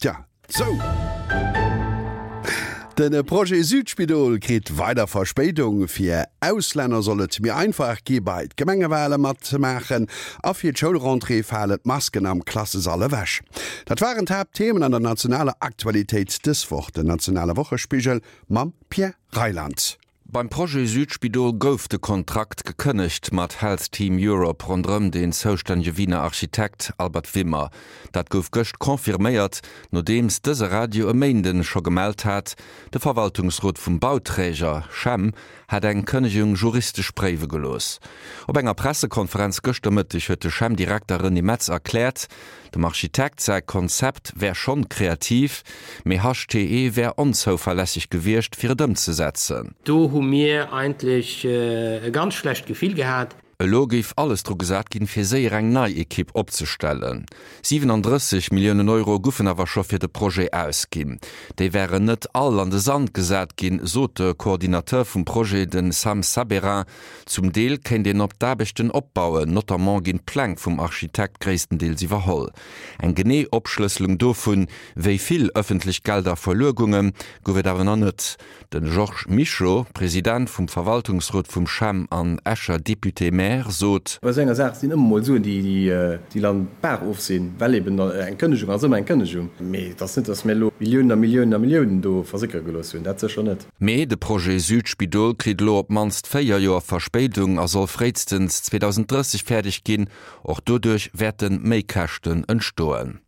Tja, sou! De Projet Südspidol kritt weider Verspéidung. Fir Auslänner soll et méi einfach gi bei d'Gemengewale matzemaachen a fir d'Schoulrentrée falen d'Masken am Klassesall ewech. Dat waren d'Haaptthemen an der nationaler Aktualitéit dës Woch. Den nationale Wochespigel mam Pierre Reyland. Beim Projet Südspidol gouf de Kontrakt gekënnegt mat Health Team Europe ronderëm deen zoustännege Wiener Architekt Albert Wimmer. Dat gouf gëscht confirméiert, nodeems dëse Radio e Méinden scho gemellt hat, de Verwaltungsrot vum Bauträger, Chem, hätt eng Kënnegung juristesch préiwe gelooss. Op enger Pressekonferenz gëschter Mëtteg huet de Chem-Direkter René Metz erkläert, Dem Architekt säi Konzept wär schonn kreativ, mee HTE wär onzouverlässeg gewiescht fir et ëmzesetzen. Do hu mir eigentlech e ganz schlecht Gefill gehat. Elo géif alles dru gesat ginn, fir séier eng nei Ekipp opzestellen. 37 Milliounen Euro goufen awer scho fir de Projet ausginn. Déi wären net all an de Sand gesat ginn, sot de Coordinateur vum Projet, de Sam Sabérin. Zum Deel kéint een op d'Aarbechten opbauen, notamment ginn d'Pläng vum Architekt gréisstendeels iwwerholl. Eng genee Opschlësselung dovun, wéi vill ëffentlech Gelder verluer gungen, gouf et awer nach net. De Georges Mischo, President vum Verwaltungsrot vum CHEM an Escher Député-maire, sot. Bei esou enger Saach sinn ëmmer mol Suen, déi dann d'Baach of sinn, well eben eng Kënnegung ass ëmmer eng Kënnegung. Mee et ass net, datt mir elo Milliounen a Milliounen a Milliounen do versickere gelooss hunn, dat sécher net. Mee de Projet Südspidol kritt elo op d'mannst 4 Joer Verspéidung a soll fréistens 2030 fäerdeg ginn. Och doduerch wäerte Méikäschten entstoen.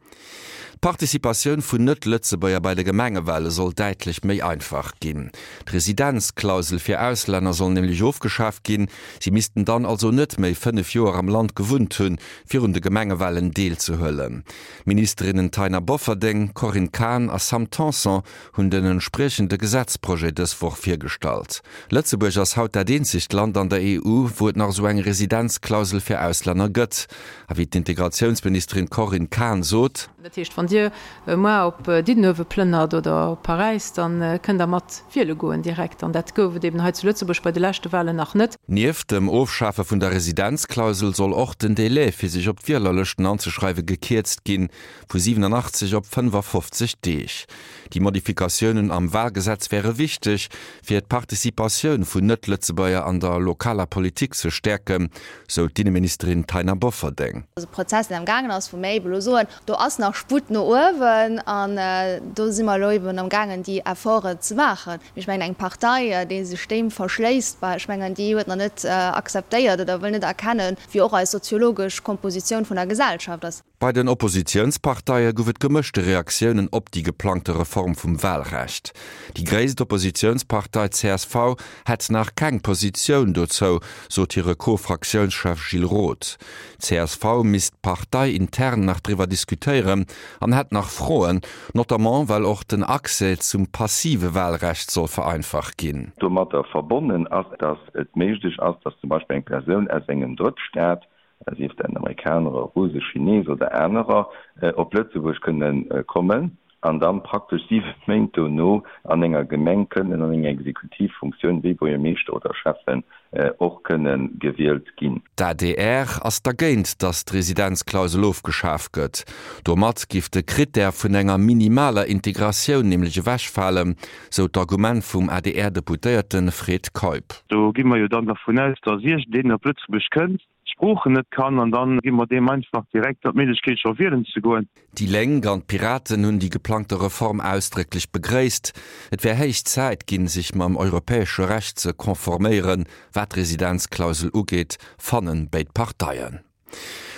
D'Participatioun vun Net-Lëtzebuerger bei de Gemengewale soll däitlech méi einfach ginn. D'Residenzklausel fir Auslänner soll nämlech ofgeschaaft ginn. Si missten dann also net méi 5 Joer am Land gewunnt hunn, fir un de Gemengewalen deelzehuelen. D'Ministerinnen Taina Bofferding, Corinne Cahen a Sam Tanson hunn den entspriechende Gesetzprojet dës Woch virgestallt. Lëtzebuerg ass haut dat eenzegt Land an der EU, wou et nach esou eng Residenzklausel fir Auslänner gëtt. A wéi d'Integratiounsministerin Corinne Cahen sot. Dat heescht, wann Dir muar op Diddenuewe plënnert oder op Paräis, da kënnt Der mat wiele goen direkt. An dat gouf et eben hei zu Lëtzebuerg bei de leschte Wahlen nach net. Nieft dem Ofschafe vun der Residenzklausel soll och den Délai, fir sech op d'Wielerlëschten anzeschreiwe gekierzt ginn. Vu 87 op 55 Deeg. Déi Modifikatiounen am Wahlgesetz wäre wichteg, fir d'Participatioun vun Net-Lëtzebuerger an der lokaler Politik ze stäerken, sou d'Inneministerin Taina Bofferding. E Prozess, deen am gaangen ass, wou mir ebe lo soen, do ass nach Sputt no uewen an do si mer elo eben am gaangen, déi Efforten ze maachen. Mee ech mengen, eng Partei, déi sech deem verschléisst, bah, ech mengen, déi huet nach net akzeptéiert oder wëll net erkennen, wéi och eis soziologesch Kompositioun vun der Gesellschaft ass. Bei den Oppositiounsparteie gouf et gemëschte Reaktiounen op déi geplangte Reform vum Wahlrecht. Déi gréisst Oppositiounspartei csv hätt nach keng Positioun dozou, sot hire Co-Fraktiounschef Gilles Roth. D'CSV misst parteiintern nach driwwer diskutéieren an hätt nach Froen, notamment well och den Accès zum passive Wahlrecht soll vereinfacht ginn. Domatter verbonnen ass, dass et méiglech ass, dass zum Beispill eng Persoun aus engem Drëttstaat sief dat en Amerikaner, e Russ, e Chines oder anerer, op Lëtzebuerg kënne kommen an da praktesch 7 Méint dono an enger Gemeng kënnen an enger Exekutivfunktioun wéi Buergermeeschter oder Schäffen och kënne gewielt ginn. D'adr ass dergéint, datt d'Residenzklausel ofgeschaf gëtt. Domat giff de Krittär vun enger minimaler Integratioun nämlech ewechfalen, sou d'Argument vum ADR-Deputéierte Fred Keup. Do gi mer jo dann dervun aus, datt iergendeen op Lëtzebuerg kënnt, d'Sproochen net kann an dann gi mer deem einfach direkt d'Méiglechkeet scho wielen ze goen. Déi Lénk an d'Piraten hunn déi geplangte Reform ausdrécklech begréisst. Et wär héich Zäit ginn, sech mam europäesche Recht ze konforméieren, wat d'Residenzklausel ugeet, fannen béid Parteien.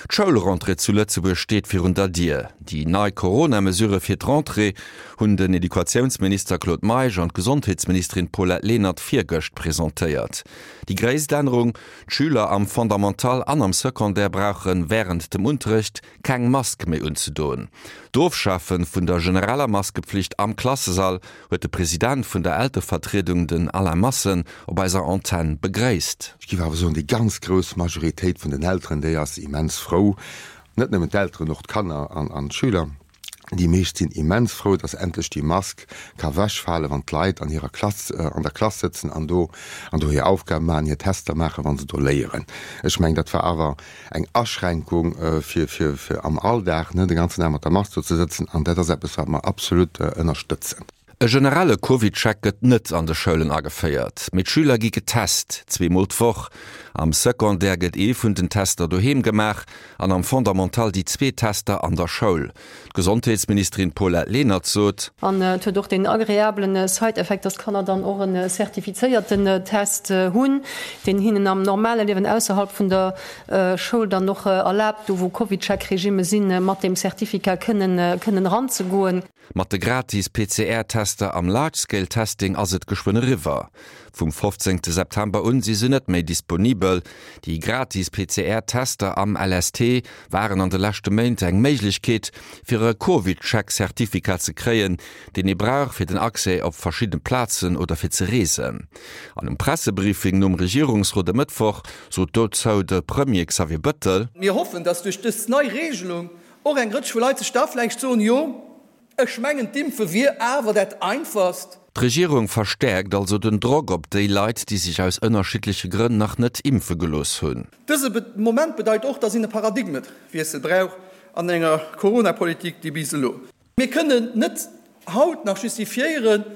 D'Schoulrentrée zu Lëtzebuerg steet virun der Dier. Déi nei Corona-Mesurë fir d'Rentrée hunn den Educatiounsminister Claude Meisch an d'Gesondheetsministerin Paulette Lenert virgëscht presentéiert. Déi gréisst Ännerung, D'Schüler am Fondamental an am Secondaire brauche wärend dem Unterrecht keng Mask méi unzedoen. D'Ofschafe vun der genereller Maskepflicht am Klassesall huet de President vun der Elterevertriedung, den Alain Massen, op eiser Antenn begréisst. Ech géif awer soen, déi ganz grouss Majoritéit vun den Elteren, déi ass immens frou, net nëmmen d'Elteren, och d'Kanner an d'Schüler. Déi meescht sinn immens frou, dass endlech déi Mask ka wechfalen, wann d'Leit an hirer Klass, an der Klass sëtzen an do, an do hir Aufgabe maachen, hir Tester maachen, wa se do léieren. Ech mengen, dat war awer eng Aschränkung fir, fir, fir am Alldag, ne, de ganzen Dag mat der Mask do ze sëtzen. An dat ass eppes, wat mer absolut ënnerstëtzen. E generelle CovidCheck gëtt net an de Schoulen ageféiert, mee d'Schüler gi getest, zweemol d'Woch. Am Secondaire gëtt ee vun den Tester doheem gemaach an am Fondamental déi zwee Tester an der Schoul. D'Gesondheetsministerin Paulette Lenert sot. An et huet och deen agreablen Side-Effekt, dass d'Kanner dann och en zertifizéierten Test hunn, deen hinnen am normale Liewen ausserhalb vun der Schoul dann och erlaabt, do wou CovidCheck-Regimme sinn, mat deem Certificat kënnen kënnen eranzegoen. Mat de gratis PCR-Tester am Large-Scale Testing ass et geschwënn eriwwer. Vum 15 September un si se net méi disponibel. Déi gratis PCR-Tester am LST waren an de leschte Méint eng Méiglechkeet, fir e CovidCheck-Certificat ze kréien, deen ee brauch fir den Accès op verschidde Plazen oder fir ze reesen. An um Pressebriefing nom Regierungsrot e Mëttwoch sot dozou de Premier Xavier Bëttel. Mir hoffen, dass duerch dës nei Regelung Och eng Rëtsch vu Leit sech da vläicht soen, Jo, ech mengen, d'Impfe wier awer dat Einfachst. D'Regierung verstäerkt also den Drock op déi Leit, déi sech aus ënnerschiddleche Grënn nach net impfe gelooss hunn. Dëse Moment bedeit och, dass een e Paradigmewiessel brauch an enger Coronapolitik, déi bis elo. Mir kënnen net haut nach justifiéieren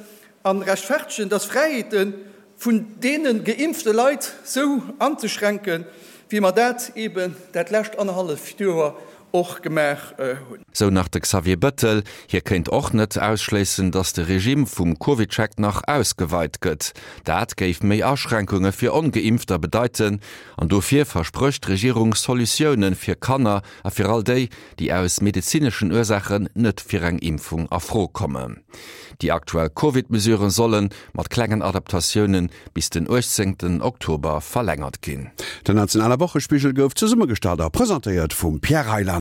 a rechtfertegen, dass Fräiheete vun deene geimpfte Leit sou anzeschränken, wéi mer dat eeben dat lescht annerhalleft Joer och gemaach hunn. Sou nach de Xavier Bëttel. Hie kéint och net ausschléissen, datt de Regime vum CovidCheck nach ausgeweit gëtt. Dat géif méi Aschränkunge fir Ongeimpfter bedeiten. An dofir versprécht d'Regierung Solutioune fir Kanner a fir all déi, déi aus medezineschen Ursaachen net fir eng Impfung a Fro kommen. Déi aktuell Covid-Mesuren solle mat klengen Adaptatioune bis den 18 Oktober verlängert ginn. Den nationale Wochespigel gouf zesummegestallt a presentéiert vum Pierre Reyland.